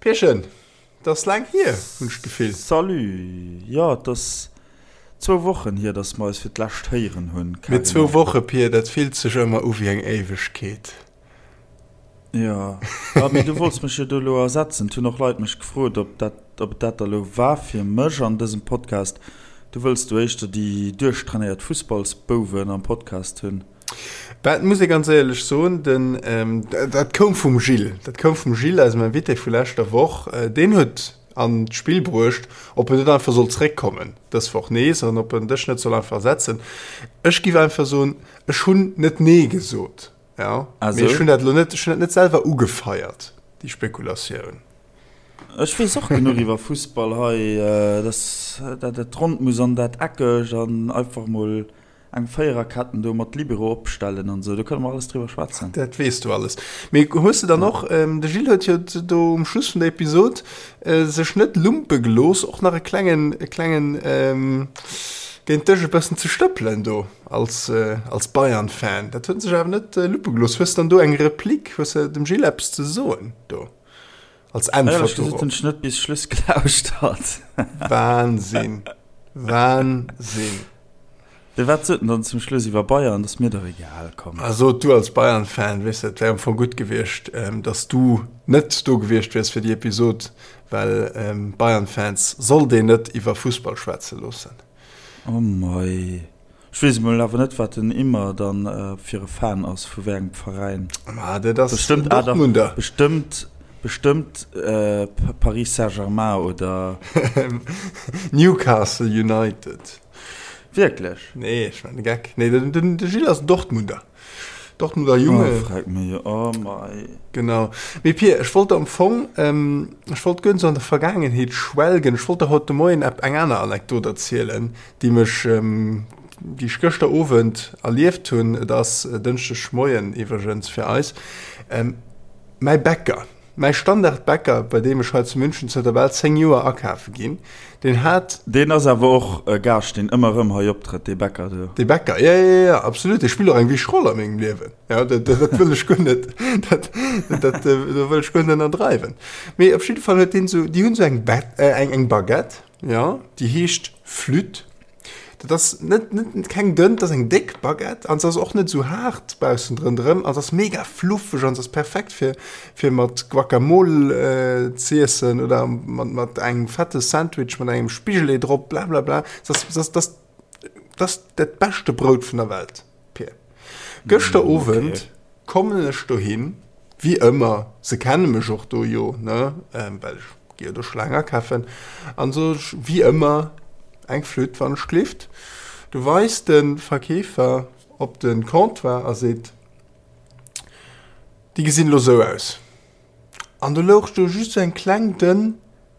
Pierchen, et ass laang hier, hunn ech d'Gefill. Salut, jo et ass zwou Wochen hier, dass mer eis fir d'lescht héieren hunn, Mee zwou Woche, Pir, dat fillt sech ëmmer u wéi eng Éiwegkeet. Jo, ah mee du wollts mech jo do elo ersetzen. Et hunn och Leit mech gefrot, ob dat, ob et dat da elo war fir mech an dësem Podcast. Du wëlls do éischter déi duerchtrainéiert Fussballsbouwen am Podcast hunn. Bah, et muss ee ganz éierlech soen, den, dat koum vum Gilles, dat koum vum Gilles, eisem Invité vu leschter Woch. Deen huet an d'Spill bruecht, ob en net einfach soll zréckkommen dës Woch nees an ob en dech net soll einfach ersetzen. Ech giff einfach soen, ech hunn net nee gesot. Ja, mee ech hunn dat elo net, ech hunn dat net selwer ugefeiert, déi Spekulatioun. Ech weess och genuch iwwer Fussball hei, dass dat et rond muss an dat eckeg an einfach mol eng Véiererketten do mat Libero opstellen an esou, do kënne mer alles driwwer schwätzen. Dat weess du alles. Mee hues de dann och, de Gilles huet jo do um Schluss vun der Episod sech net lumpe gelooss, och nach e klengen, e klengen géint dech e bëssen ze stëppelen do. Als, als Bayern-Fan, dat huet en sech awer net luppe gelooss. Hues dann do eng Replik, hues de dem Gilles eppes ze soen do als Äntwert Éierlech gesot hunn ech net bis Schluss gelauschtert. Wahnsinn, Wahnsinn. De wat sot en dann zum Schluss iwwer Bayern? Dat ass mir dach egal, komm. Also du als Bayern-Fan, weess de, et wär am Fong gutt gewiescht, dass du net do gewiescht wiers fir déi Episod, well Bayern-Fans sollt een net iwwer Fussball schwätze loossen. Oh mei. Ech weess emol awer net wat den Immer dann fir e Fan ass, vu wéi engem Veräin. Ma dat ass Bestëmmt, ah dach, Dortmunder. bestëmmt, bestëmmt Paris Saint-Germain oder. Newcastle United. Wierklech? Nee, ech man de Geck. Nee, den, den, de Gilles ass Dortmunder. Dortmunder Junge. Oh, frag mech, oh mei. Genau. Mee Pir, ech wollt am Fong, ähm, ech wollt guer net sou an der Vergaangenheet schwelgen. Ech wollt der haut de Moien eng aner Anekdot erzielen, déi mech, déi ech gëschter Owend erlieft hunn. Et ass Dënschdeg Moien iwwregens fir eis. Mäi Bäcker, mäi Standardbäcker, bei deem ech hei zu München zënter bal 10 Joer akafe ginn, deen hat. Deen ass awer och e Gaascht, deen ëmmer erëm hei optrëtt, dee Bäcker do. Dee Bäcker, jo, jo, jo, absolut. Dee spillt och eng wichteg Roll a mengem Liewen. Jo, dat, dat wëll ech guer net, dat, dat, do wëll ech guer net ënnerdreiwen. Mee op jidde Fall huet deen esou, déi hunn esou eng, eng, eng Baguette. Jo, déi heescht Flûte. Dat ass net, net keng dënn, dat ass eng déck Baguette an se ass och net esou haart baussen drënderëm an se ass mega fluffeg an se ass perfekt fir, fir mat Guacamole z'iessen oder mat, mat engem fette Sandwich mat engem Spigelee drop, blablabla. Se ass, se ass, dat ass, dat ass dat beschte Brout vun der Welt. Pir. Gëschter Owend kommen ech dohin, wéi ëmmer, se kenne mech och do jo, ne, well ech gi jo do scho laang akafen, an sot ech, wéi ëmmer, eng Flütt, wann ech glift. Du weist de Verkeefer op de Comptoir a seet, Déi gesinn elo sou aus. An do louch do just sou eng kleng dënn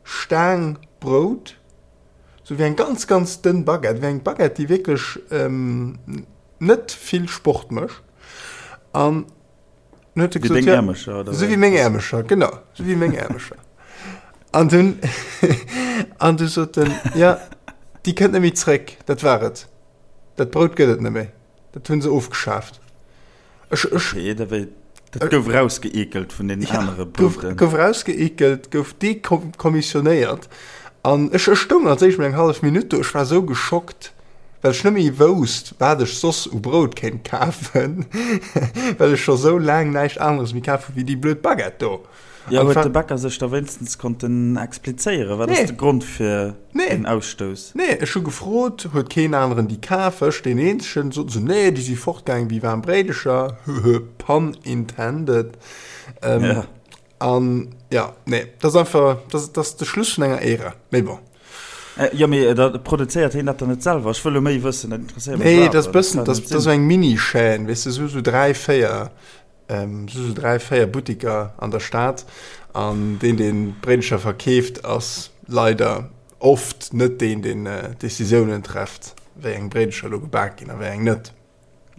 Staang Brout, Sou wéi eng ganz ganz dënn Baguette, wéi eng Baguette déi wierklech net vill Sport mécht. An dann huet e gesot, ja, Äermecher, oder? Sou wéi meng Äermecher, genau, sou wéi meng Äermecher. An dunn, an du sot en, ja, déi kënnt net méi zréck, dat war et. Dat Brout gëtt et net méi, dat hu se ofgeschaaft. Ech, ech, Okay, da wéi, dat gouf rausgeekelt vun den ja, anere Brouten. Gouf, gouf rausgeekelt, gouf dekommissionéiert. An ech, ech stoung als éischt mol eng hallef Minutt do, ech war sou geschockt, well ech net méi wousst, wat ech soss u Brout kéint kafen, well ech scho sou laang näischt aneres méi kaf hu wéi déi blöd Baguette do. Jo, huet de Bäcker sech da wéinstens konnten explizéieren? Wat ass de Grond fir den Ausstouss? Nee, ech hu gefrot, huet keen aneren déi kaf, ech deen eenzegen. Soten se, nee, déi si fortgaangen wéi waarm Bréidecher, höhö, pun intended. An jo, nee, dat ass einfach, dat ass de Schluss vun enger Ära, mee bon. Jo, mee da produzéiert hien dat dann net selwer? Ech wëll elo méi wëssen, dat interesséiert mech. Nee, dat ass bëssen, dat ass esou eng Mini-Chaîne, weess de, esou 3, 4 Sou 3, 4 Buttiker an der Stad an deen deen d'Bréidelcher verkeeft ass leider oft net deen deen d'Decisiounen trefft wéi eng Bréidelcher elo gebak ginn a wéi eng net.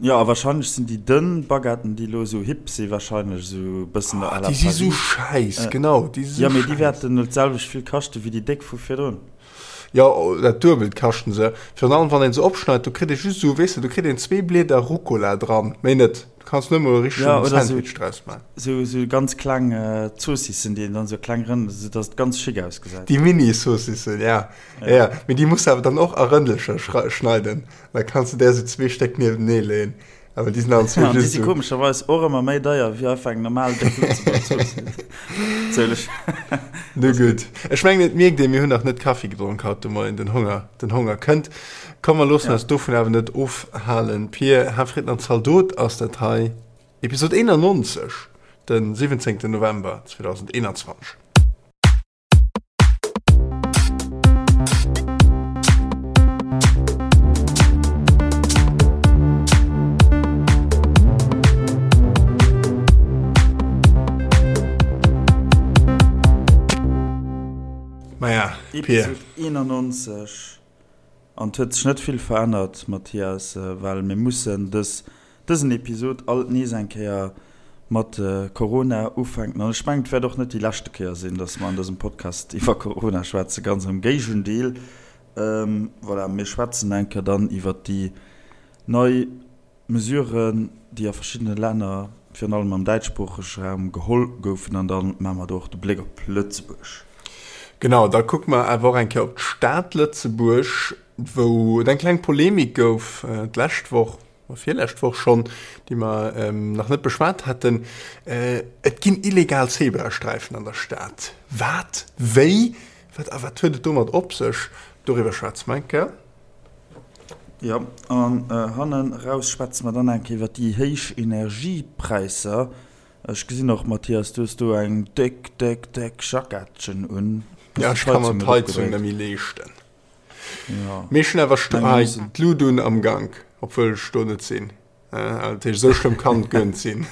Jo a wahrscheinlech sinn déi dënn Baguetten déi elo esou hip si wahrscheinlech esou e bëssen à la Paris. Déi si sou schäiss, genau, déi si sou schäiss. Jo mee déi wäerten elo d'selwecht vill kaschte wéi déi déck vu virdrun. Jo, dat Duebelt kaschten se. Virun allem wann een se opschneit, do kritt ee just esou, weess de, do kritt een zwee Blieder Rucola dran, méi net. Kanns net mol e richtegen ja, oder Sandwich draus maachen. Sou, sou ganz kleng Zoossissen, déi een dann sou kleng Rënn, sou dass et ganz schick ausgesäit. Déi Mini-Zoossissen, ja. Ja, ja. Mee déi muss de awer dann och a Rëndelcher schneiden. Da kanns de där sou zwee Stéck niewentenee leeën. Awer déi sinn allen zwee just sou. Déi si komescherweis och ëmmer méi deier wéi einfach eng normal déck Lëtzebuerger Zoossiss. Natierlech. Nu gutt. Ech mengen, et mierkt een, mir hunn nach net Kaffi gedronk haut de Moien. Den Honger, den Honger kënnt. Komm, mer loossen eis dovun awer net ofhalen. Pir, Hafritten an Zaldot ass dat hei, Episod 91, de 17. November 2021. Maja, Pir. Episod 91. An et huet sech net vill verännert, Mathias, well mir mussen dës, dësen Episod alt nees eng Kéier mat Corona ufänken. An ech mengen, et wäert och net déi leschte Kéier sinn, dass mer an dësem Podcast iwwer Corona schwätzen, ganz am Géigendeel. Voilà, mir schwätzen eng Kéier dann iwwer déi nei Mesuren, déi a verschiddene Länner, virun allem am däitschsproochege Raum, geholl goufen. An da maache mer do och de Bléck op Lëtzebuerg. Genau, da kucke mer awer och eng Kéier op d'Stad Lëtzebuerg, wou et eng kleng Polemik gouf d'lescht Woch, oder virlescht Woch schonn, déi mer nach net beschwat haten. Et ginn illegal Zebrasträifen an der Stad. Wat? Wéi? Wat? A wat huet et domat op sech? Doriwwer schwätze mer eng Kéier. Jo, an hannen eraus schwätze mer dann eng Kéier iwwer déi héich Energiepräisser. Ech gesinn och, Mathias, du hues do eng déck, déck, déck Jackettchen un. Ja, ech ka mer d'Heizung net méi leeschten. Jo. Mee ech hunn awer d'Lut un am Gank, obwuel ech do net sinn. Dat heescht, esou schlëmm kann et guer net sinn.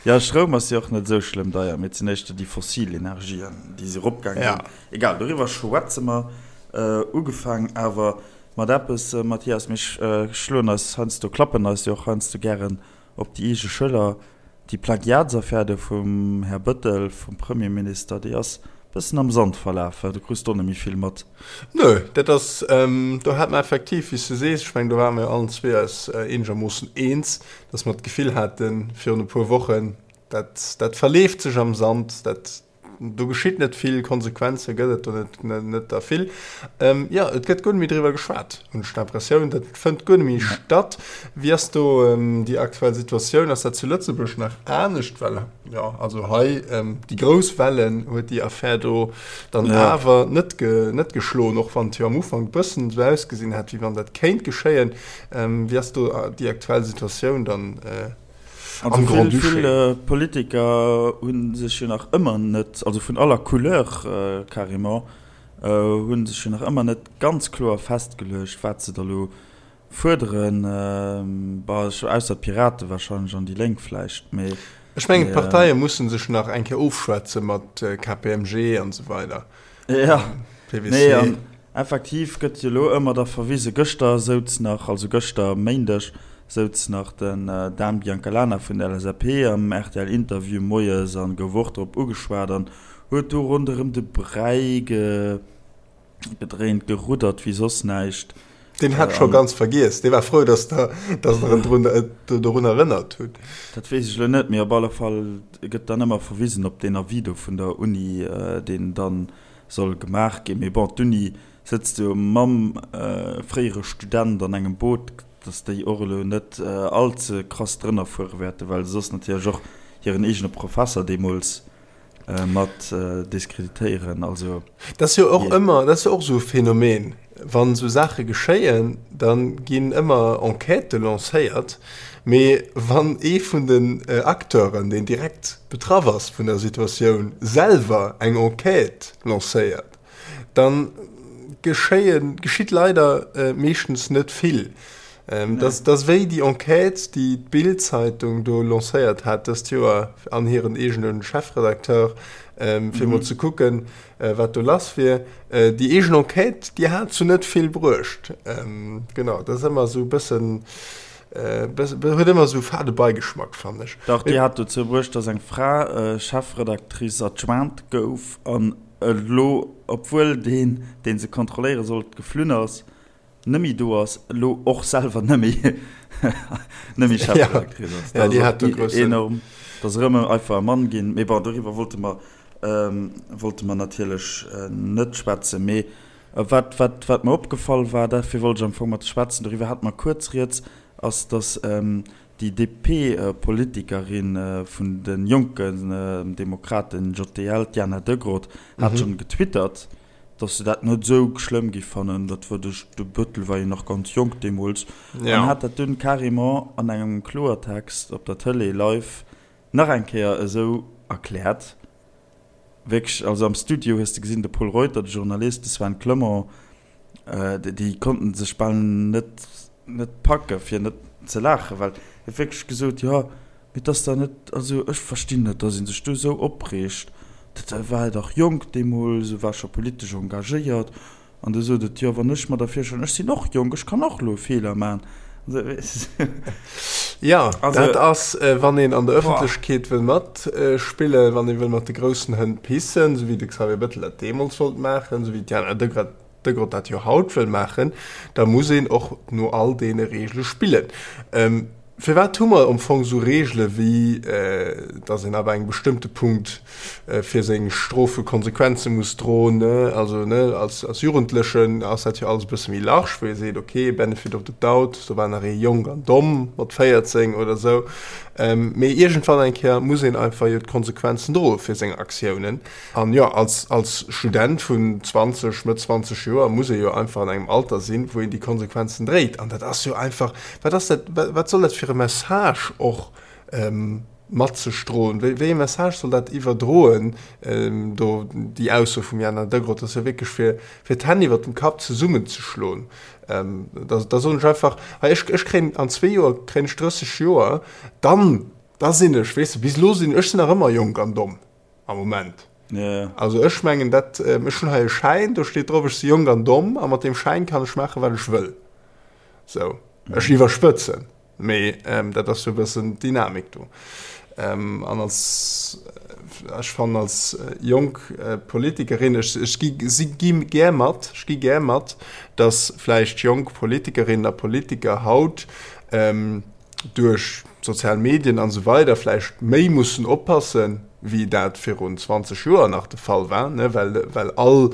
Jo, Stroum ass jo och net esou schlëmm deier, mee et sinn éischter déi fossil Energien, déi se eropgaange sinn. Egal, doriwwer schwätze mer. Ugefaang awer mat eppes, Mathias, mir schloen eis heiansdo, klappen eis jo och heiansdo gären op déi eege Schëller. Déi Plagiatsaffär do vum Här Bëttel, vum Premierminister, déi ass bëssen am Sand verlaf, wa? Du krus do net méi vill mat. Nö, dat ass, do hat mer effektiv, wéi s de sees, ech mengen, do ware mer jo allen zwee eis eenegermoossen eens, dass mer d'Gefill haten virun e puer Wochen, dat, dat verleeft sech am Sand, dat, Do geschitt net vill, Konsequenze gëtt et do net, net der vill. Jo, et gëtt guer net méi driwwer geschwat, hunn ech d'Impressioun. Dat fënnt guer net méi statt. Wéi ass do déi aktuell Situatioun? Ass dat zu Lëtzebuerg nach anescht? Well, jo, also hei déi grouss Wellen huet déi Affär do dann awer net, net geschloen, och wann et jo am Ufank e bëssen esou ausgesinn hat, wéi wann dat kéint geschéien. Wéi ass do déi aktuell Situatioun dann? Also vill, vill Politiker hu sech jo nach ëmmer net, also vun aller Couleur carrément, hu sech jo nach ëmmer net ganz kloer festgeluecht, wat se da lo fuerderen. Bon, ausser d'Pirate wahrscheinlech an déi Lénk vläicht, mee. Ech mengen, d'Parteie musse sech nach eng Kéier ofschwätze mat KPMG an esou weider. Ja, nee, an effektiv gëtt jo elo ëmmer da verwisen, gëschter souz nach, also gëschter Méindeg, souz nach den Dan Biancalana vun der LSAP am RTL-Interview moies an gouf och drop ugeschwat an huet do ronderëm de Bräi gedréint, geruddert wéi soss näischt. Deen hat scho ganz vergiess, dee war frou, datt Der der en drun dorun erënnert hutt. Dat weess ech elo net, mee op alle Fall gëtt dann ëmmer verwisen op deen Avis do vun der Uni, deen dann soll gemaach ginn. Mee bon, d'Uni sëtzt jo mam fréiere Student an engem Boot, datt déi och elo net all ze krass drënner fuere wäerten, well se soss natierlech och hiren eegene Professer deemools mat diskreditéieren. Also, Dat ass jo och ëmmer, dat ass jo och esou e Phänomen, wann esou Saache geschéien, da ginn ëmmer Enquêtë lancéiert, mee wann ee vun den Acteuren, deen direkt betraff ass vun der Situatioun, selwer eng Enquête lancéiert, da geschéien, geschitt leider meeschtens net vill. Dat ass wéi déi Enquête, déi d'Bild-Zeitung do lancéiert hat dëst Joer an hiren eegene Chefredacteur, fir emol ze kucken, wat do lass wier. Déi eegen Enquête, déi hat zu net vill bruecht. Genau, dat ass ëmmer esou e bëssen, huet ëmmer esou e fade Beigeschmack, fannen ech. Dach, déi hat dozou bruecht, datt eng Fra Chefredactrice adjointe gouf an elo, obwuel deen, dee se kontrolléiere sollt, geflunn ass. Nëmmi do ass, elo och selwer nëmmi nëmmi Chefredaktrice ass. Ja, déi hat do groussen. Enorm, dass erëm einfach e Mann ginn. Mee bon, doriwwer wollte mer, wollte mer natierlech net schwätzen. Mee wat, wat, wat mer opgefall war, dafir wollt ech am Fong mat schwätzen, doriwwer hate mer kuerz rieds, ass, dass déi DP-Politikerin vun de Jonken Demokraten, JDL, d'Diana Degrott, hat schonn getwittert, dass se dat net esou schlëmm gi fannen, dat war de de Bëttel war jo nach ganz jonk deemools, an hat dat dunn carrément an engem Kloertext op der Tëlee live nach eng Kéier esou erkläert. Wierklech, also am Studio hues de gesinn, de Pol Reuter, de Journalist, de Sven Clement, déi konnten sech bal net net packe fir net ze laachen, well hie huet wierklech gesot, jo, Mee et ass da net, also ech verstinn net, dass ee sech do esou opreegt. Dat war dach jonk deemools, e war scho politesch engagéiert. An du sot et, jo, wann ech mer da virstellen, ech sinn och jonk, ech kann och elo e Feeler maachen. Jo, dat ass, wann een an der Ëffentlechkeet wëll matspillen, wann ee wëll mat de groussen Hënn pissen, esou wéi de Xavier Bettel dat deemools wollt maachen, esou wéi d'Diana Degrott dat jo haut wëll maachen, da muss een och no all deene Reegele spillen. Firwat hu mer am Fong esou Reegele wéi, datt een ab engem bestëmmte Punkt fir seng Strofe Konsequenze muss droen? Also als Jugendlechen ass dat jo alles e bësse méi large, wou ee seet, ok, benefit of the doubt, do war nach ee jonk an domm mat 14 oder esou. Mee iergendwann eng Kéier muss een einfach jo d'Konsequenzen droe fir seng Aktiounen. An jo, als, als Student vun 20, Mëtt 20 Joer muss ee jo einfach an engem Alter sinn, wou een déi Konsequenzen dréit. An dat ass jo einfach, wat ass dat, wat soll dat fir e Message och mat sech droen? Wéi, wéi e Message soll dat iwwerdroen, do déi Ausso vum Jana Degrott? Dat ass jo wierklech fir, fir d'Hänn iwwert dem Kapp zesummenzeschloen. Da, da soen ech einfach, hei, ech, ech kréien an zwee Joer kréien ech 30 Joer, dann, da sinn ech, weess de, bis elo sinn, ech sinn nach ëmmer jonk an domm. Am Moment. Ja. Also ech mengen dat, ech hunn hei e Schäin, do steet drop, ech si jonk an domm a mat deem Schäin kann ech maachen, wat ech wëll. Sou, ech iwwerspëtzen, mee dat ass sou e bëssen d'Dynamik do. An als, ech fannen als jonk Politikerin, ech, ech gi, si gi gär mat, ech gi gär mat, datt vläicht jonk Politikerinnen a Politiker haut, duerch d'sozial Medien an esou weider vläicht méi mussen oppassen, wéi dat virun 20 Joer nach de Fall war, ne, well, well all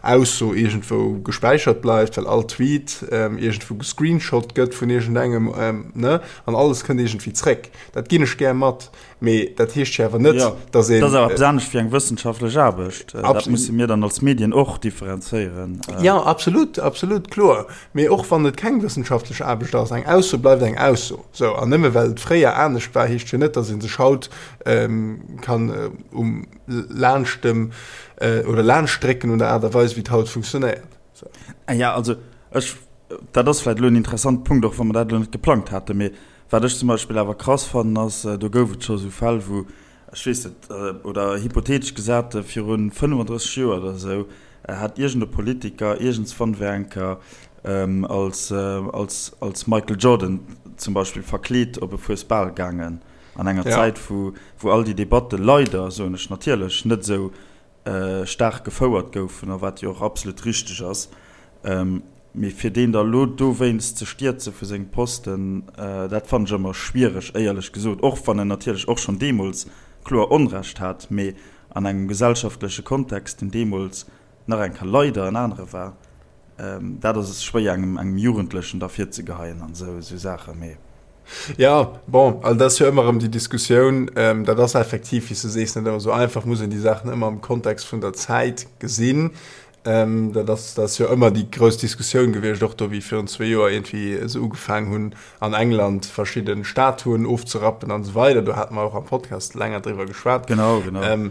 Ausso iergendwou gespäichert bleift, well all Tweet iergendwou gescreenshot gëtt vun iergendengem, ne, an alles kënnt iergendwéi zréck. Dat ginn ech gär mat. Mee dat heescht jo awer net, datt een. Dat ass awer eppes anescht wéi eng wëssenschaftlech Aarbecht. Dat musse mir dann als Medien och differenzéieren. Jo, absolut, absolut, kloer. Mee och wann et keng wëssenschaftlech Aarbecht ass, eng Ausso bleift eng Ausso. Sou, an nëmme well et fréier anescht war, heescht jo net, datt ee sech haut kann um laanscht dem oder laanscht drécken un der Aart a Weis, wéi et haut funktionéiert. Sou. Jo, also ech, dat ass vläicht elo en interessante Punkt, och wa mer dat elo net geplangt haten, mee Wat ech zum Beispill awer krass fannen ass, do gouf et scho sou Fäll wou, ech weess net, oder hypothetesch gesat, viru 35 Joer oder esou hat iergend e Politiker iergendswann wär eng Kéier als, als, als Michael Jordan zum Beispill verkleet op e Fuesbal gaangen an enger Zäit wou, wou all déi Debatte leider, soen ech natierlech, net esou staark gefouert goufen, a wat jo och absolut richteg ass, mee fir deen da lo dowéinst ze stierze vu sengem Posten, dat fannen ech ëmmer schwiereg, éierlech gesot, och wann en natierlech och schonn deemools kloer Onrecht hat, mee an engem gesellschaftleche Kontext, deen deemools nach eng Kéier leider en anere war, dat ass schwéier engem engem Jugendlechen da virzegeheien an esou esou Saachen, mee. Jo, bon, also dat ass jo ëmmer erëm déi Diskussioun. Dat ass effektiv, wéi s de sees, net ëmmer esou einfach, muss een déi Saachen ëmmer am Kontext vun der Zäit gesinn. Dat ass, dat ass jo ëmmer déi grouss Diskussioun gewiescht, och do wéi virun zwee Joer iergendwéi se ugefaang hunn an England verschidde Statuen ofzerappen an esou weider. Do hate mer och am Podcast länger driwwer geschwat. Genau, genau.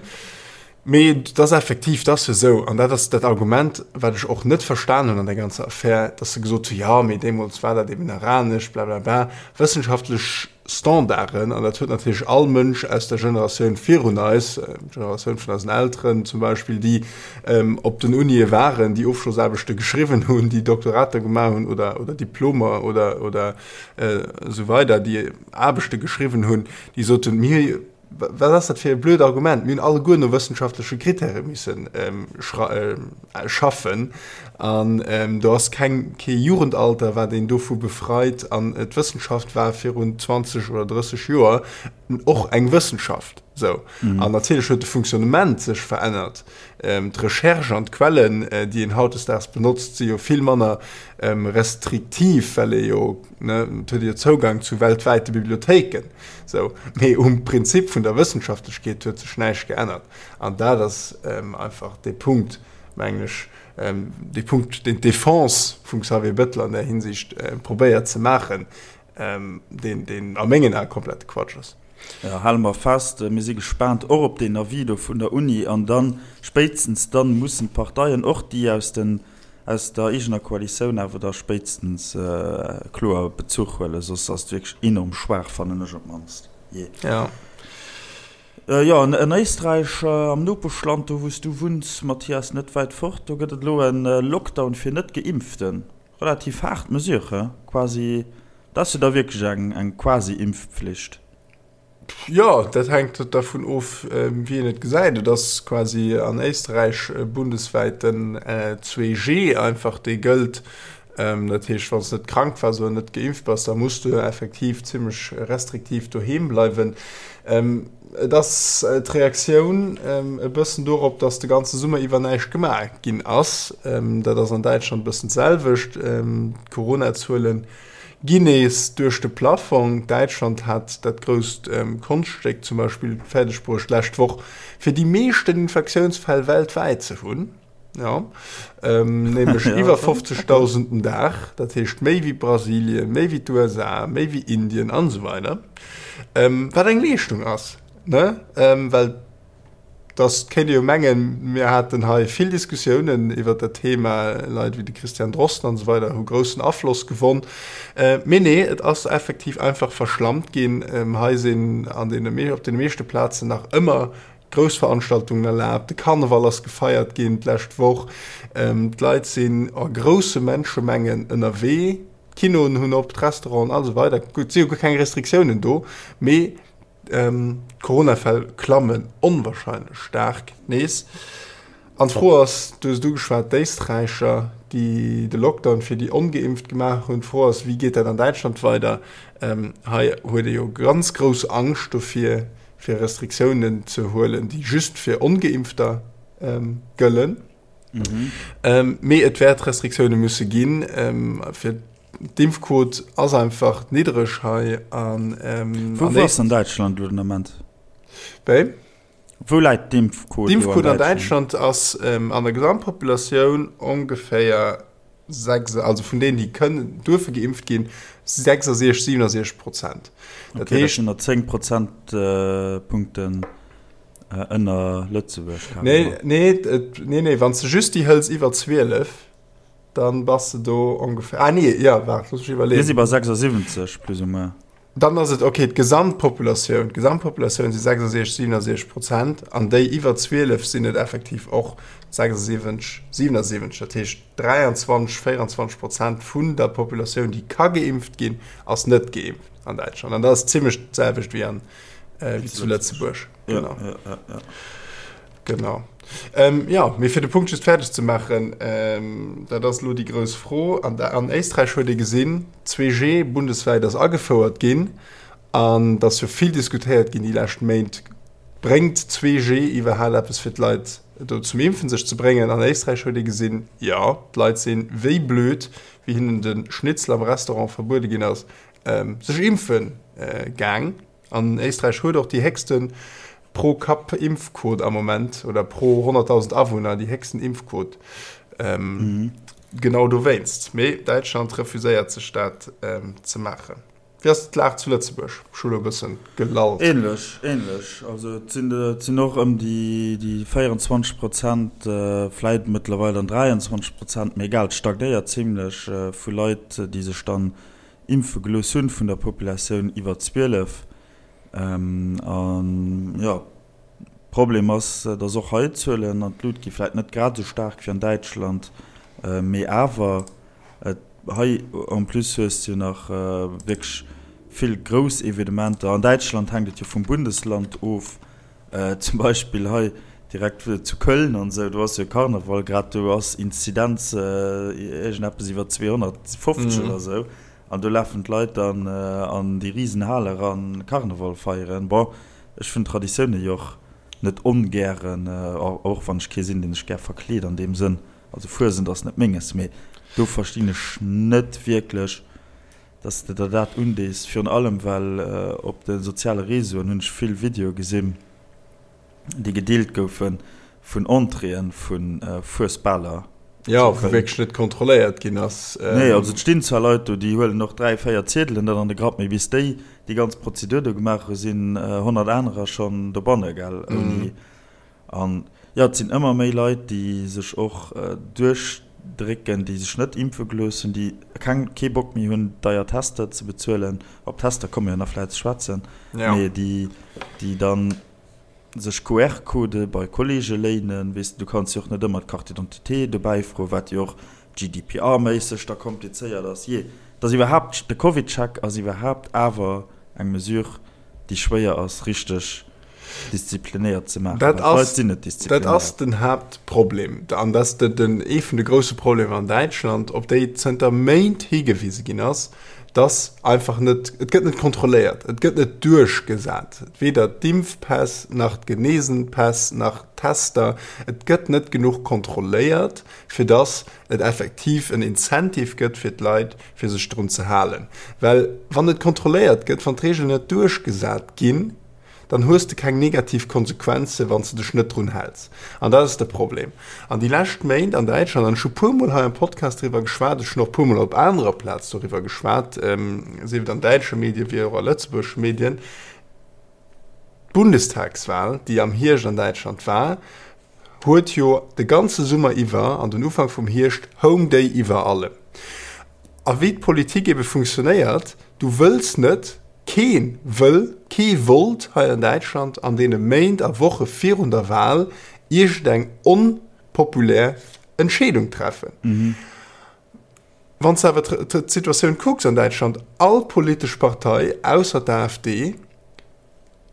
Mee et ass effektiv, et ass jo esou, an dat ass dat Argument, wat ech och net verstan hunn an der ganzer Affär, dass se gesot hunn, jo, mee deemools war dat eben nach anescht, blablabla. Wëssenschaftlech Standarden, an dat huet natierlech all Mënsch aus der Generatioun virun eis, d'Generatioun vun eisen Elteren zum Beispill, déi op den Unie waren, déi Ofschlossaarbechte geschriwwen hunn, déi Doktorater gemaach hunn oder, oder Diplomer oder, oder esou weider, déi Aarbechte geschriwwen hunn, déi soten, mir. Wat ass dat fir e blöd Argument? Mir hunn alleguer no wëssenschaftleche Krittäre missen schaffen an do ass keng, kee Jugendalter, wat een dovu befreit. An d'Wëssenschaft war virun 20 oder 30 Joer och eng Wëssenschaft. Sou. An natierlech huet de Fonctionnement sech verännert. D'Recherche an d'Quellen, déi een hautdesdaags benotzt, si jo vill manner restriktiv, well ee jo, ne, et huet ee jo Zougang zu weltwäite Bibliothéiken. Sou. Mee um Prinzip vun der Wëssenschaftlechkeet huet sech näischt geännert. An dat ass einfach dee Punkt, mengen ech, dee Punkt, deen d'Defense vum Xavier Bettel an där Hinsicht probéiert ze maachen, deen, deen a mengen Ae komplette Quatsch ass. Jo, hale mer fest, mir si gespaant och op deen Avis do vun der Uni. An dann, spéitstens dann, mussen d'Parteien, och déi aus den, aus der eegener Koalitioun, awer da spéitstens kloer Bezuch huelen, soss ass et wierklech enorm schwaach, fannen ech op d'mannst. Jee. Jo. Jo, an Éisträich, am Nopeschland, do wou s du wunns, Mathias, net wäit fort, do gëtt et elo e Lockdown fir Net-Geimpften. Relativ haart Mesure, he? Quasi, dat ass jo da wierklech eng, eng Quasi-Impfpflicht. Jo, dat hänkt dervun of, wéi een et gesäit. Et ass quasi an Éisträich bundeswäit den 2G einfach, dee gëllt. Dat heescht, wann s de net krank waars oder net geimpft bass, da muss du effektiv zimmlech restriktiv doheem bleiwen. Et ass d'Reaktioun e bëssen dorop, datt de ganze Summer iwwer näischt gemaach ginn ass. Dat ass an Däitschland e bëssen d'selwecht. D'Corona-Zuele ginn nees duerch de Plaffong. Däitschland hat dat grousst Konschtstéck zum Beispill fäerdeg bruecht, d'lescht Woch fir déi meeschten Infektiounsfäll weltwäit ze hunn. Jo, nämlech iwwer 50.000 den Dag, dat heescht méi wéi Brasilien, méi wéi d'USA, méi wéi Indien an esou weider. Wat eng Leeschtung ass, ne? Well dass kéint ee jo mengen, mir haten hei vill Diskussiounen iwwer dat Thema, Leit wéi de Christian Drosten an esou weider hu groussen Afloss gewonn. Mee nee, et ass effektiv einfach verschlammt ginn. Hei sinn an deene, op deene meeschte Plazen nach ëmmer Grouss Veranstaltungen erlaabt, de Karneval ass gefeiert ginn d'lescht Woch, d'Leit sinn a grousse Menschemengen ënnerwee, d'Kinoen hunn op, d'Restauranten a sou weider. Gutt, et si jo guer keng Restriktiounen do, mee d'Coronafäll klammen onwahrscheinlech staark nees. An d'Fro ass, du hues et ugeschwat, d'Éisträicher, déi de Lockdown fir déi Ongeimpft gemaach hunn, d'Fro ass, wéi geet dat an Däitschland weider? Hei huet ee jo ganz grouss Angscht dofir, fir Restriktiounen ze huelen, déi just fir Ongeimpfter gëllen. Mee et wäert Restriktioune musse ginn, fir d'Impfquot ass einfach niddreg hei. Wou ass an Däitschland elo den Ament? Wéi? Wou läit d'Impfquot elo an Däitschland? D'Impfquot an Däitschland ass an der Gesamtpopulatioun ongeféier 6, also vun deenen, déi kënnen, duerfe geimpft ginn, 66, 67 Prozent. Dat okay, heescht, dat sinn der 10 Prozentpunkten ënner Lëtzebuerg. Nee, nee, nee, nee, wann s de just déi hëls iwwer 12, dann bass de do ongeféier, ah nee, ja, waart, looss mech iwwerleeën. Mir si bei 76 plus ou moins. Dann ass et ok, d'Gesamtpopulatioun, d'Gesamtpopulatioun si 66, 67 Prozent an déi iwwer 12 sinn et effektiv och 76, 77. Dat heescht 23, 24 Prozent vun der Populatioun, déi ka geimpft ginn, ass net geimpft an Däitschland. An dat ass zimmlech d'selwecht wéi an, wéi zu Lëtzebuerg. Genau. Ja, ja, ja. Genau. Ähm, ja, mee fir de Punkt just fäerdeg ze maachen, ähm, dat ass elo déi grouss Fro. An, an Éisträich huet ee gesinn, 2G bundeswäit ass agefouert ginn an et ass jo vill diskutéiert ginn déi lescht Méint, bréngt 2G iwwerhaapt eppes fir d'Leit do zum Impfen sech ze bréngen? An Éisträich huet ee gesinn, jo, d'Leit sinn wéi blöd, wéi hinnen de Schnitzel am Restaurant verbuede ginn ass, ähm, sech impfe gaang. An Éisträich huet och déi héchste Pro-Kapp-Impfquot am Moment, oder pro 100.000 Awunner déi héchsten Impfquot. Genau dowéinst. Mee Däitschland refuséiert sech dat ze maachen. Wéi ass d'Lag zu Lëtzebuerg? Ech hu lo e bëssen gelallt. Ähnlech, ähnlech. Also et sinn, et sinn och ëm déi, déi 24 Prozent, vläit mëttlerweil dann 23 Prozent, mee egal, et stagnéiert zimlech, vu Leit, déi sech dann impfe gelooss hunn vun der Populatioun iwwer 12. An jo, Problem ass, datt och hei d'Zuelen an d'Lut gi vläit net grad esou staark wéi an Däitschland, mee awer hei en plus hues de jo nach wierklech Vill grouss Evenementer. An Däitschland hänkt et jo vum Bundesland of. Zum Beispill hei direkt zu Köln an esou, do ass jo Karneval grad, do ass Inzidenz iergendeppes iwwer 250 oder esou. An do lafen d'Leit dann an déi risen Hal eran Karneval feieren. Bon, ech hunn Traditioune jo och net ongären, och wann ech kee sinn, deen sech gär verkleet an deem Sënn. Also Fuesent ass net menges, mee do verstinn ech net wierklech, dass de der dat undees, virun allem well op de soziale Réseauen hunn ech vill Videoe gesinn, déi gedeelt goufe vun Entréeë vu Fuesbaler. Jo, wou wierklech net kontrolléiert ginn ass. Nee, also et stinn zwar Leit do, déi huelen och 3, 4 Ziedelen dann an de Grapp, mee bis déi déi ganz Prozedur do gemaach hu sinn 100 anerer schonn dobanne, gell, ouni. An jo, et sinn ëmmer méi Leit, déi sech och duerchdrécken, déi sech net impfe gelooss hunn, déi keng, kee Bock méi hunn, deier Tester ze bezuelen. Op Tester komme mir jo nach vläicht ze schwätzen. Mee déi, déi dann sech QR-Codë bei Kolleege léinen. Weess de, du kanns jo och net ëmmer d'Carte d'identité dobäi froen, wat jo och GDPR-méisseg da komplizéiert ass. Jee, et ass iwwerhaapt, de CovidCheck ass iwwerhaapt awer eng Mesure, déi schwéier ass richteg disziplinéiert ze maachen, well d'Leit sinn net disziplinéiert. Dat ass den Haaptproblem an dat ass den ee vun de grousse Problemer an Däitschland, op déi zënter Méint higewise ginn ass, dass einfach net, et gëtt net kontrolléiert, et gëtt net duerchgesat, weder d'Impfpäss nach d'Genesenpäss nach d'Tester, et gëtt net genuch kontrolléiert, fir dass et effektiv en Incentive gëtt fir d'Leit, fir sech drun ze halen. Well wann net kontrolléiert gëtt, wann d'Reegelen net duerchgesat ginn, dann hues de keng negativ Konsequenzen, wann s de dech net drun häls. An dat ass de Problem. An déi lescht Méint an Däitschland, an ech hu puermol hei am Podcast driwwer geschwat, ech hunn och puermol op anerer Plaz doriwwer geschwat, sief et an däitsche Medien, wéi och a lëtzebuergesche Medien, d'Bundestagswahl, déi am Hierscht an Däitschland war, huet jo de ganze Summer iwwer an den Ufank vum Hierscht houng déi iwwer allem. A wéi d'Politik ebe funktionéiert, du wëlls net, kee wëll, kee wollt hei an Däitschland an deene Méint a Woche virun der Wahl iergendeng onpopulär Entscheedung treffen. Wann s de awer d'Situatioun kucks an Däitschland, all politesch Partei ausser d'AfD,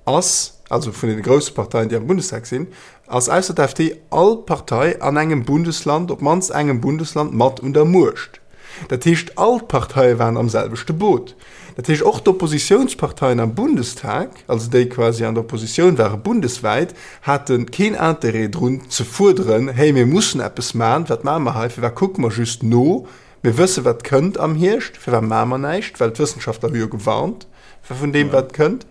ass, also vun deene grousse Parteien, déi am Bundestag sinn, ass ausser d'AfD all Partei an engem Bundesland, op d'mannst engem Bundesland, mat un der Muecht. Dat heescht, all d'Parteie waren am selwechte Boot. Dat heescht, och d'Oppositiounsparteien am Bundestag, also déi quasi an der Oppositioun ware bundeswäit, hate keen Interêt drun ze fuerderen, Hey, mir mussen eppes maachen, wat maache mer hei, firwat kucke mer just no? Mir wësse wat kënnt am Hierscht, firwat maache mer näischt? Well d'Wëssenschaftler hu jo gewarnt vun deem wat kënnt.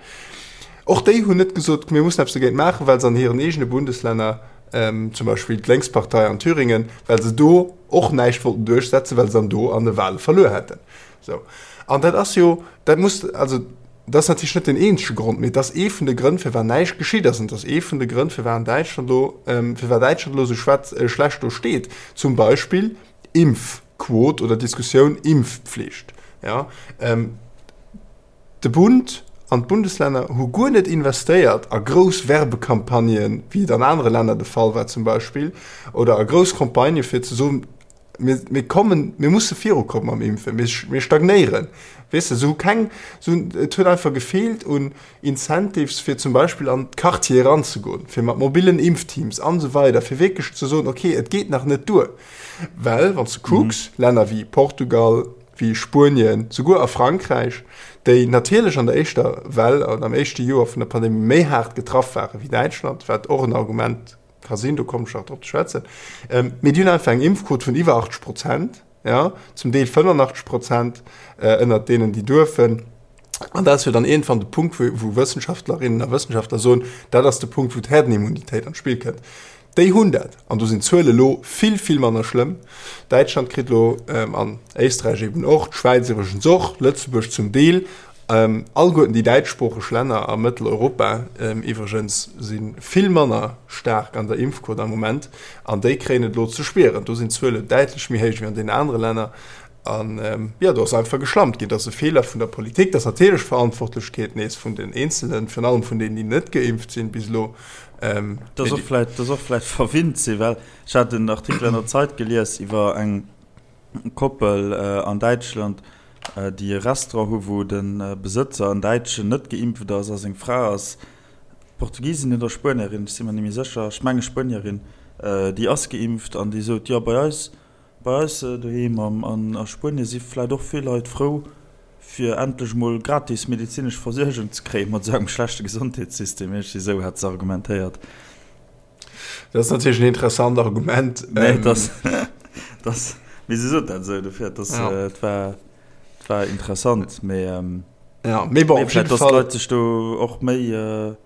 Och déi hunn net gesot, mir mussen eppes dogéint maachen, well se an hiren eegene Bundeslänner, zum Beispill d'Lénkspartei an Thüringen, well se do och näischt wollten duerchsetzen, well se dann do an de Wahle verluer hätten. Sou. An dat ass jo, dat muss, also dat ass natierlech net den eenzege Grond, mee et ass ee vun de Grënn, firwat näischt geschitt ass. An et ass ee vun de Grënn, firwat an Däitschland elo, firwat Däitschland elo esou schlecht do steet. Zum Beispill Impfquot oder Diskussioun Impfpflicht. Ja, ähm, de Bund an d'Bundeslänner hu guer net investéiert a grouss Werbecampagnen, wéi et an anere Länner de Fall war zum Beispill, oder a grouss Campagnë fir ze soen, mir, mir kommen, mir musse virukommen mam Impfen, mir, mir stagnéieren. Weess de, se hu keng, se hunn, et huet einfach gefeelt un Incentives fir zum Beispill an d'Quartiere eranzegoen, fir mat mobilen Impfteams an esou weider, fir wierklech ze soen, okay, et geet nach net duer. Well wann s de kucks, Länner wéi Portugal, wéi Spuenien, souguer a Frankräich, déi natierlech an der éischter Well an am éischte Joer vun der Pandemie méi haart getraff ware wéi Däitschland, wat och en Argument ka sinn, do kommen ech nach drop ze schwätzen, mee déi hunn einfach eng Impfquot vun iwwer 80 Prozent, jo, zum Deel 85 Prozent ënnert deenen, déi duerfen. An dat ass jo dann iergendwann de Punkt, wou Wëssenschaftlerinnen a Wëssenschaftler soen, dat ass de Punkt, wou d'Herdenimmunitéit an d'Spill kënnt. Déi hunn dat. An do sinn d'Zuele lo vill, vill manner schlëmm. Däitschland kritt lo, an Éisträich eben och, d'Schwäiz iwwregens och, Lëtzebuerg zum Deel, alleguerten déi däitschsproocheg Länner a Mëtteleuropa iwwregens si vill manner staark an der Impfquot am Moment. An déi kréien et elo ze spieren. Do sinn d'Zuele däitlech méi héich wéi an deenen anere Länner. An jo, do ass einfach geschlampt ginn. Dat ass e Feeler vun der Politik. Dat ass natierlech d'Verantwortlechkeet nees vun den Eenzelen, virun allem vun deenen, déi net geimpft sinn bis elo. Dat ass och vläicht, dat ass och vläicht verwinnt sinn, well ech hat en Artikel an der Zeit gelies iwwer eng Koppel an Däitschland. déi e Restaurant hu wou de Besëtzer, en Däitschen, net geimpft ass a seng Fra ass Portugisin oder Spuenierin, ech si mer net méi sécher, ech menge Spuenierin, déi ass geimpft an déi sot, jo bei eis, bei eis doheem an a Spuenie si vläicht och vill Leit frou, fir endlech mol gratis medezinesch Versuergung ze kréien, mat esou engem schlechte Gesondheetssystem. Iergendwéi esou hat se argumentéiert. Dat ass natierlech en interessant Argument. Nee, dat, dat, mee se sot dat esou, dofir, dat, ja. et war, et war interessant, mee, ähm, ja, mee bon, op jeden Fall. Dass d'Leit sech do och méi, äh,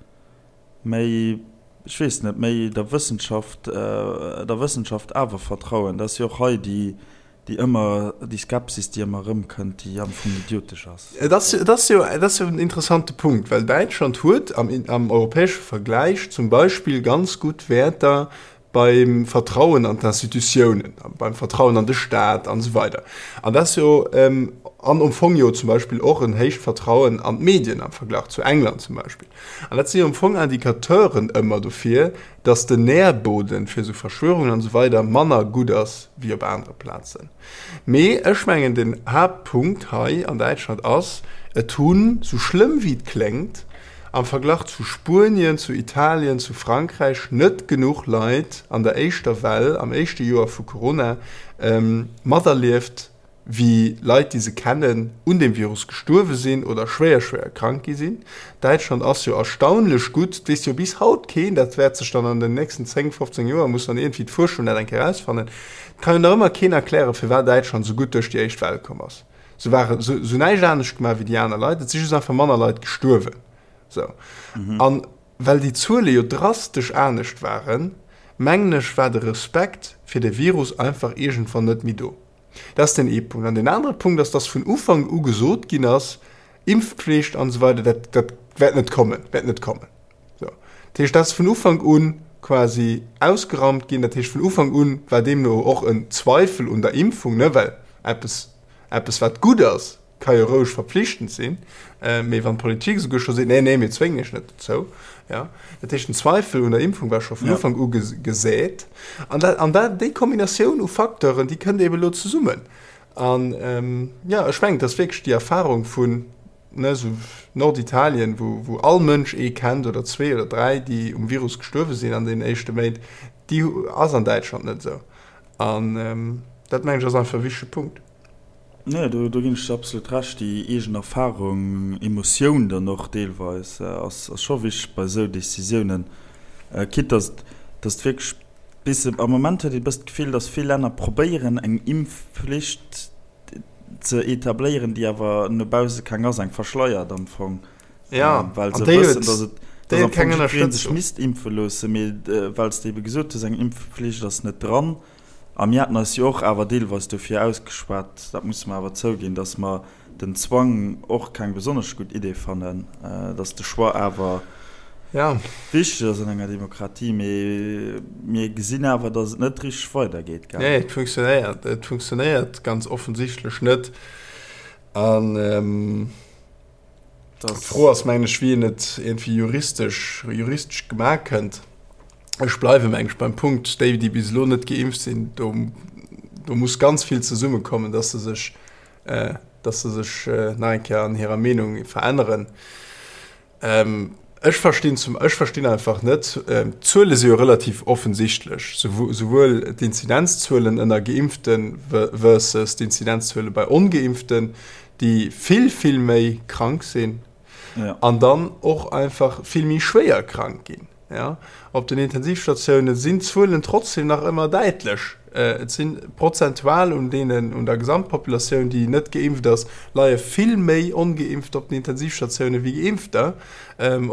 méi, ech weess net, méi der Wëssenschaft, äh, der Wëssenschaft awer vertrauen. Dat ass jo och hei déi, Déi ëmmer, déi Skepsis, déi ëmmer erëmkënnt, déi am Fong idiotesch ass. Et ass, et ass jo, et ass jo en interessante Punkt, well Däitschland huet am, am europäesche Vergläich zum Beispill ganz gutt Wäerter beim Vertrauen an d'Institutiounen, beim Vertrauen an de Staat an esou weider. An dat ass jo, an am Fong jo zum Beispill och en héicht Vertrauen an d'Medien am Verglach zu England zum Beispill. An dat si jo am Fong Indicateuren ëmmer dofir, dass den Nährboden fir esou Verschwörungen an esou weider manner gutt ass wéi op anere Plazen. Mee ech mengen den Haaptpunkt hei an Däitschland ass, et hunn, sou schlëmm wéi et kléngt, am Verglach zu Spuenien, zu Italien, zu Frankräich net genuch Leit an der éischter Well, am éischte Joer vu Corona, materlieft, wéi Leit, déi se kennen, un deem Virus gestuerwe sinn oder schwéier, schwéier krank gi sinn. Däitschland ass jo erstaunlech gutt, et weess jo bis haut keen, dat wäert sech dann an den nächsten 10, 15 Joer, muss dann iergendwéi d'Fuerschung dat eng Kéier erausfannen, et kann jo nach ëmmer keen erklären, firwat Däitschland esou gutt duerch déi éischt Well komm ass. Se ware se hunn näischt anescht gemaach wéi déi aner Leit, et si just einfach manner Leit gestuerwen. Sou. An well déi Zuele jo drastesch anescht waren, mengen ech, war de Respekt fir de Virus einfach iergendwann net méi do. Dat ass deen ee Punkt. An deen anere Punkt ass, dass vun Ufank u gesot ginn ass, Impfpflicht an esou weider, dat, dat wäert net kommen, wäert net kommen. Sou. Dat heescht, dat ass vun Ufank u quasi ausgeraumt ginn. Dat heescht, vun Ufank u war deemno och en Zweifel un der Impfung, ne, well eppes, eppes wat gutt ass, ka jo roueg verpflichtend sinn, mee wann d'Politik esouguer scho seet, nee, nee, mir zwéngen iech net dozou, ja, dat heescht den Zweifel un der Impfung war scho vun Ufank u gesät. An dat, an dat, déi Kombinatioun u Facteuren, déi kënnt eebe elo zesummen. An jo, ech mengen, et ass wierklech déi Erfahrung vun, ne, esou Norditalien, wou, wou all Mënsch ee kennt oder zwee oder dräi, déi um Virus gestuerwe sinn an deenen éischte Méint, déi ass an Däitschland net esou. An dat, mengen ech, ass einfach e wichtege Punkt. Nee, do ginn ech der absolut Recht. Déi eegen Erfarung, Emotioun dann och deelweis, ass scho wichteg bei esou Decisiounen. Quitte dass dass et wierklech bis am Moment huet een e bëssen d'Gefill, dass vill Länner probéieren eng Impfflicht ze etabléieren, déi awer no bausse keng ass, eng verschleiert am Fong. Ja, well se wëssen, dass et dass am Fong jiddweree sech misst impfe loossen, mee well s de ebe gesot hues, eng Impfflicht ass net dran. A mir haten eis jo och awer deelweis dofir ausgeschwat, dat musse mer awer zouginn, dass mer den Zwang och keng besonnesch gutt Idee fannen, dass de Choix awer wichteg ass an enger Demokratie. Mee mir gesinn awer, dass et net richteg weidergeet, gell? Nee, et funktionéiert, et funktionéiert ganz offensichtlech net. An d'Fro ass, mengen ech, wéi een et iergendwéi juristesch, juristesch gemaach kënnt. Ech bleiwe mengen ech beim Punkt, déi, déi bis elo net geimpft sinn, do, do muss ganz vill zesummekommen, dass se sech, äh, dass se sech äh, nach eng Kéier an hirer Meenung veränneren. Ähm, ech verstinn zum, ech verstinn einfach net, ähm, d'Zuele si jo relativ offensichtlech, souwuel d'Inzidenzzuelen ënner Geimpften versus d'Inzidenzzuele bei Ongeimpften, déi vill, vill méi krank sinn ja. an dann och einfach vill méi schwéier krank ginn. Ja, op den Intensivstatioune sinn d'Zuelen trotzdem nach ëmmer däitlech. Et si prozentual un deenen, un der Gesamtpopulatioun, déi net geimpft ass, leie vill méi Ongeimpfter op den Intensivstatioune wéi Geimpfter.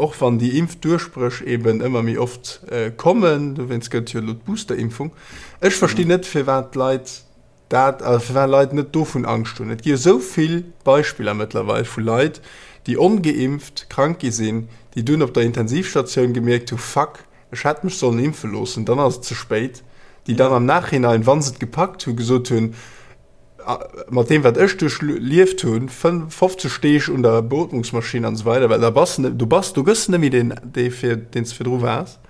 Och wann déi Impfduerchbréch eben ëmmer méi oft kommen, dowéinst gëtt et jo elo d'Boosterimpfung. Ech verstinn net, firwat d'Leit Dat, a firwat Leit net dovun Angscht hunn. Et gi jo esou vill Beispiller mëttlerweil vu Leit, déi ongeimpft krank gi sinn, déi dunn op der Intensivstatioun gemierkt hu, Fuck, ech hätt mech sollen impfe loossen, dann ass et ze spéit, déi dann am Nachhinein, wa se et gepackt hunn, gesot hunn, mat deem wat ech duerchlieft hunn, 50 Deeg un der Beotmungsmaschinn an esou weider, well da bass de, du bass, du gëss net méi deen, dee fir, deen s de virdru waars.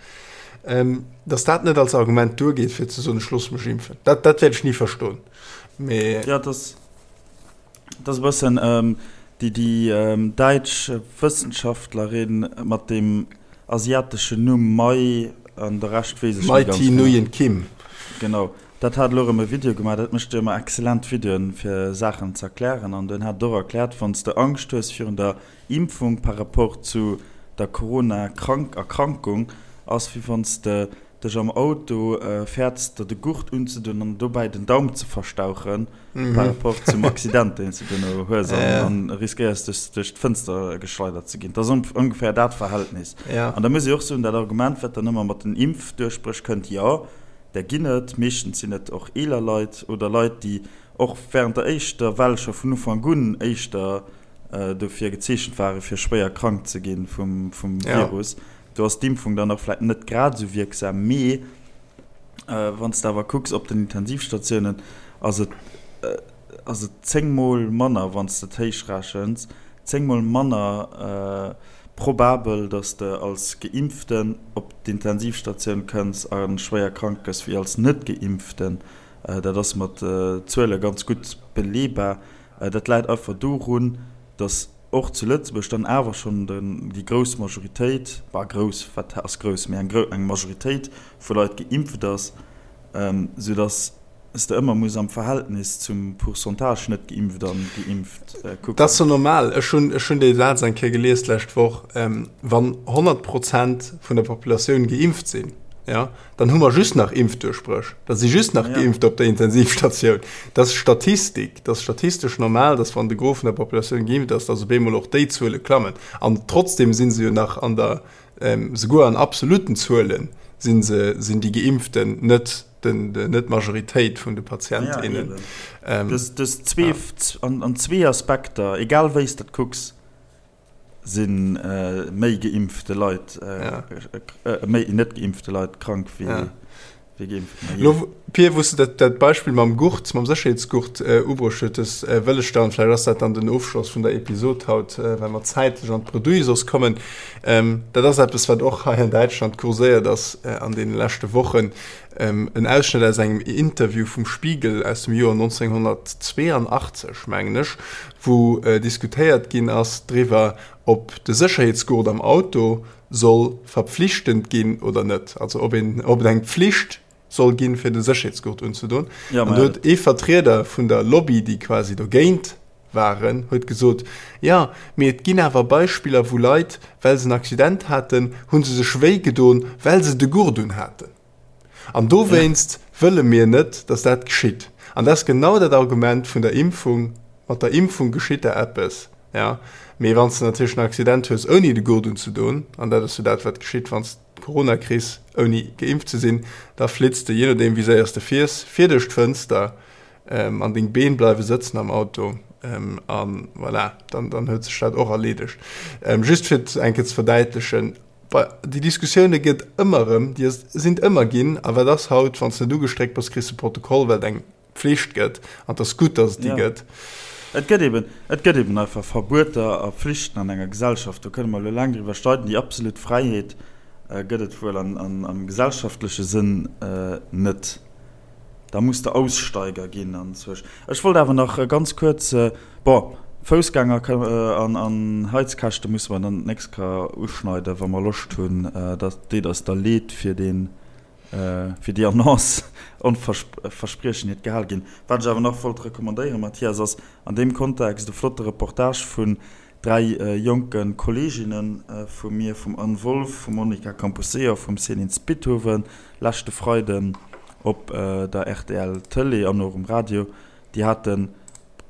Dass dat net als Argument duergeet, fir ze soen, ech loosse mech impfen, dat, dat wäert ech ni verstoen. Mee. Ja, dass. Dat ass e bëssen déi déi däitsch Wëssenschaftlerin mat deem asiateschen Numm Mai an de Rescht weess ech net ganz genau. Mai Thi Nguyen Kim. Genau, dat hat elo erëm e Video gemaach. Dat mécht jo ëmmer excellent Videoen, fir Saachen ze erklären. An den hat et och erkläert, wann s de Angscht hues virun der Impfung par rapport zu der Corona-Erkrankung, ass wéi wann s de dech am Auto fäerts der de Gurt unzedun an dobäi den Daum ze verstauchen par rapport zum Accident deen s de duerno hues an riskéiers dech duerch d'Fënster geschleidert ze ginn. Dat ass ongeféier dat Verhältnis. An da muss ee och soen, dat Argument wat dann ëmmer mat den Impfduerchbréch kënnt, jo där ginn et, meeschtens sinn et och eeler Leit oder Leit déi och während der éischter Well scho vun Ufank un éischter dofir gezeechent ware fir schwéier krank ze gi vum Virus. Do ass d'Impfung dann och vläit net grad esou wierksam, mee wann s de awer kucks op den Intensivstatiounen, ass et ass et zéngmol manner, wann s de et héichrechens, zéngmol manner probabel, datt s de als Geimpften op d'Intensivstatioun kënns a schwéier krank gëss, wéi als Net-Geimpften. Dat ass mat Zuele ganz gutt beleebar. Dat läit einfach dorun, datt och zu Lëtzebuerg dann awer schonn déi grouss Majoritéit, bah grouss, wat ass grouss, mee eng Majoritéit vu Leit geimpft ass, soudass s de ëmmer muss am Verhältnis zum Pourcentage net geimpft an geimpft kucken. Dat ass jo normal. Ech hunn, ech hunn dee Saz eng Kéier gelies d'lescht Woch, Wann 100 Prozent vun der Populatioun geimpft sinn, jo, Dann hu mer just nach Impfduerchbréch. Da si just nach Geimpfter op der Intensivstatioun. Dat ass Statistik. Dat ass statistesch normal, dass wann de Gros vun der Populatioun geimpft ass, dass op eemol och déi Zuele klammen. An trotzdem si se jo nach an der, souguer an absolutten Zuele si se, sinn déi Geimpften net den, net d'Majoritéit vun de Patient, innen. Ja, eben. Dës zwee, an zwee Aspekter, egal wéi s de et kucks, Si méi geimpfte Leit, méi net geimpfte Leit krank wéi geimpften? Lo, Pir, wou s de dat Beispill mam Gurt, mam Sécherheetsgurt ubruecht hues, wëll ech dann, vläicht ass dat dann den Ofschloss vun der Episod haut, well mer zäitlech an d'Bredouille soss kommen, dat ass eppes, wat och hei an Däitschland kurséiert ass an deene leschte Wochen, en Ausschnëtt aus engem Interview vum Spiegel aus dem Joer 1982, mengen ech, wou diskutéiert ginn ass driwwer, ob de Sécherheetsgurt am Auto soll verpflichtend ginn oder net, also ob een, ob et eng Pflicht soll ginn, fir de Sécherheetsgurt unzedon. An do huet ee Vertrieder vun der Lobby, déi quasi dogéint waren, huet gesot, Jo, mee et ginn awer Beispiller, wou Leit, well se en Accident haten, hu se sech wéi gedon, well se de Gurt unhaten. An dowéinst wëlle mir net, dass dat geschitt. An dat ass genau dat Argument vun der Impfung, Mat der Impfung geschitt der eppes, jo, mee wann s de natierlech en Accident hues, ouni de Gurt unzedon, an dat ass jo dat, wat geschitt, wann s de d'Corona kriss, ouni geimpft ze sinn, da flitts de, jee nodeem wéi séier s de fiers, vir duerch d'Fënster an deng Been bleiwe sëtzen am Auto. A voilà, dann huet sech dat och erleedegt. Just fir et eng Kéier ze verdäitlechen, Déi Diskussioune gëtt ëmmer erëm, déi sinn ëmmer ginn. A wat ass haut, wann s de net ugestréckt bass, kriss de Protokoll, well et eng Pflicht gëtt. An et ass gutt, datt et déi gëtt. Et gëtt eben, et gëtt eben einfach Verbueter a Pflichten an enger Gesellschaft. Do kënne mer elo laang driwwer streiden. Déi absolut Fräiheet gëtt et wuel am gesellschaftleche Sënn net. Da muss de Aussteiger ginn anzwousch. Ech wollt awer nach ganz kuerz, bon, Foussgänger an Heizkäschte musse mer dann d'nächst Kéier uschneiden, wa mer Loscht hunn. Dat deet eis da leed fir deen, fir déi Annonce. Onverspriechen hiert Gehal ginn. Wat ech awer nach wollt recommandéieren, Mathias, ass an deem Kontext e flotte Reportage vun dräi jonke Kolleeginne vu mir, vum Anne Wolff, vum Monica Camposeo a vum Céline Spithoven, leschte Freiden op der rtl Tëlee an och um Radio. Déi hate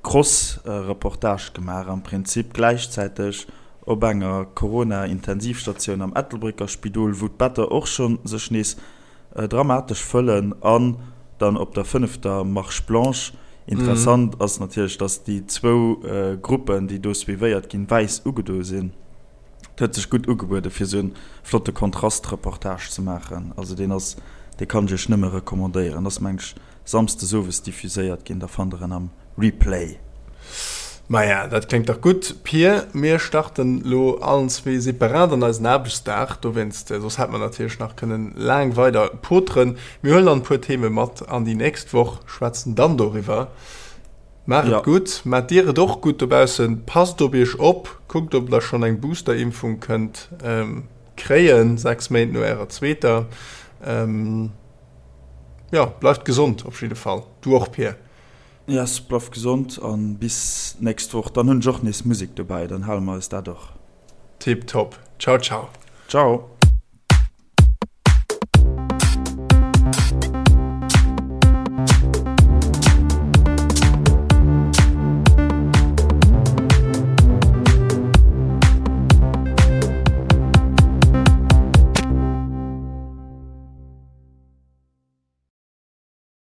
Cross-Reportage gemaach, am Prinzip gläichzäiteg op enger Corona-Intensivstatioun am Ettelbrécker Spidol, wou d'Better och scho sech nees dramatesch fëllen an dann op der fënnefter Marche blanche. Interessant ass natierlech, dass déi zwou Gruppen, déi do suivéiert ginn, wäiss ugedo sinn. Et huet sech gutt ugebuede fir esou en flotte Kontrastreportage ze maachen. Also deen ass, dee kann ech iech nëmme recommandéieren. Ass meng ech Samsdes owes diffuséiert ginn, da fannt der en am Replay. Maja, dat kléngt dach gutt, Pir. Mir starten lo allen zwee separat an eisen Aarbechtsdag, dowéinst, soss hätt mer natierlech nach kënnen laang weider poteren. Mir huelen dann e puer Theme mat an déi nächst Woch, schwätzen dann doriwwer. Maacht et gutt, maacht dir et och gutt dobaussen, passt op iech op, kuckt ob der schonn eng Boosterimpfung kënnt kréien, 6 Méint no ärer zweeter. Jo, bleift gesond op jidde Fall. Du och Pir. Yes, bleift gesond an bis nächst Woch. Dann hunn ech och nees Musek dobäi, dann hale mer eis dat och. Tip top. Ciao ciao. Ciao.